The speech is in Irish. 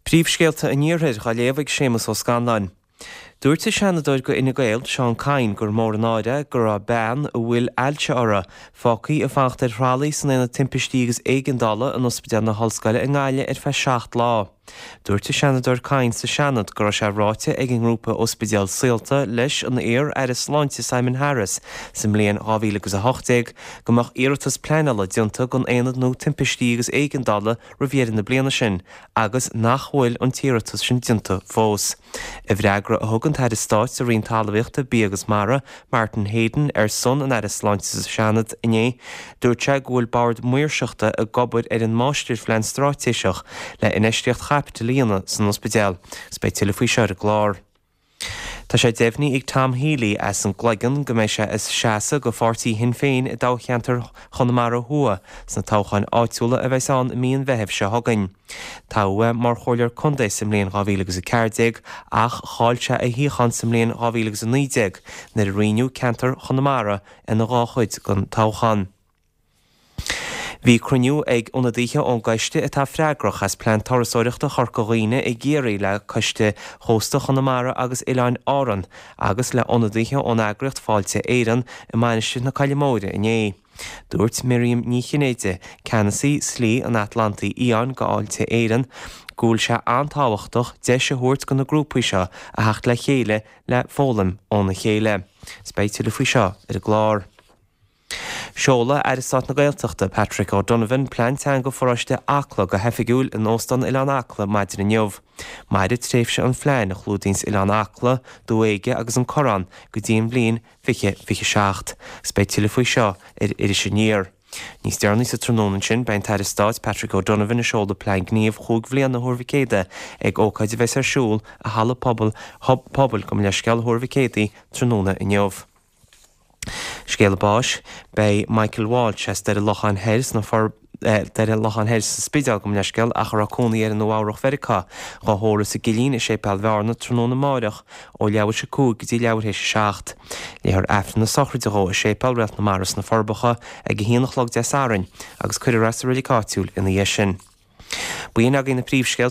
Príomhscéalta an Iarthair á léamh ag Séamus Ó Scanláin. Dúirt an Seanadóir do Fhine Gael, Seán Kyne, gur mór an náire é go raibh bean a bhfuil ailse uirthi, fágtha ag fanacht ar thralaí san Aonad Timpistí agus Éigeandála in Ospidéal na hOllscoile i nGaillimh ar feadh 7 lá. Dúirt an Seanadóir Kyne sa Seanad go raibh sé ráite ag an ngrúpa Ospidéal Saolta leis an iar-Aire Sláinte Simon Harris sa mbliain 2018 go mbeadh iarratas pleanála déanta don Aonad nua Timpistí agus Éigeandála roimh dheireadh na bliana sin agus nach bhfuil an t-iarratas sin déanta fós. I bhfreagra a thug an tAire Stáit sa Roinn Talmhaíochta, Bia agus Mara, Martin Heydon, ar son an Aire Sláinte sa Seanad inné, dúirt sé go bhfuil Bord Maoirseachta ag obair ar an Máistirphlean Straitéiseach le infheistíocht chaipitil a dhéanamh san ospidéal. Agus beidh tuilleadh faoi seo ar an gclár. Tá sé deimhnithe ag Tom Healy as an gCloigeann go mbeidh sé ag seasamh do pháirtí Shinn Féin i dtoghcheantar Chonamara Thuaidh sna toghcháin áitiúla a bheas ann i mí an Mheithimh seo chugainn. Toghadh é mar chomhairleoir contae sa mbliain 2014 ach chaill sé a shuíochán sa mbliain 2019 nuair a roinneadh ceantar Chonamara ina dhá chuid don toghchán. Bhí cruinniú ag ionadaithe ón gcoiste atá freagrach as Plean Turasóireachta Chorca Dhuibhne i gCiarraí le Coiste Chósta Chonamara agus Oileáin Árann agus le ionadaithe ón eagraíocht Fáilte Éireann i Mainistir na Coille Móire inné. Dúirt Miriam Ní Chinnéide, Ceannasaí Slí an Atlantaigh Fhiáin do Fháilte Éireann, go bhfuil sé an-tábhachtach deis a thabhairt do na grúpaí seo a theacht le chéile le foghlaim óna chéile. Is beidh tuilleadh faoi seo ar an gclár. Seolfaidh Aire Stáit na Gaeltachta, Patrick O'Donovan, Plean Teanga Pharóiste Acla go hoifigiúil in Óstán Oileán Acla maidin inniu. Mairfidh tréimhse an phlean, a chlúdaíonns Oileán Acla, Dumha Éige agus an Corrán, go dtí an bhliain 2027. Agus beidh tuilleadh faoi seo ar Iris Aniar. Níos deireanaí sa tráthnóna ansin, beidh an tAire Stáit, Patrick O'Donovan ag seoladh Plean Gníomh chúig bhliana Thuar Mhic Éadaigh ag ócáid a bheas ar siúl i Halla Pobail, Pobail, gabh mo leithscéal, Thuar Mhic Éadaigh tráthnóna inniu. Scéala báis, Beidh Michael Walsh as Doire Locháin Thoir sna Doire Locháin Thoir sa Spidéal, gabh mo leithscéal, ach a raibh cónaí air i Nua Eabhrach Mheiriceá, dhá thórramh sa gCillín i Séipéal Bhearna tráthnóna amáireach ó leathuair théis 5 go dtí leathuair théis 7. Léifear Aifreann na sochraide dhó i Séipéal Réalt na Mara sna Forbacha ag 1 a chlog Dé Sathairn agus cuirfear é sa reilig áitiúil ina dhiaidh sin. B'in agaibh na príomhscéalta.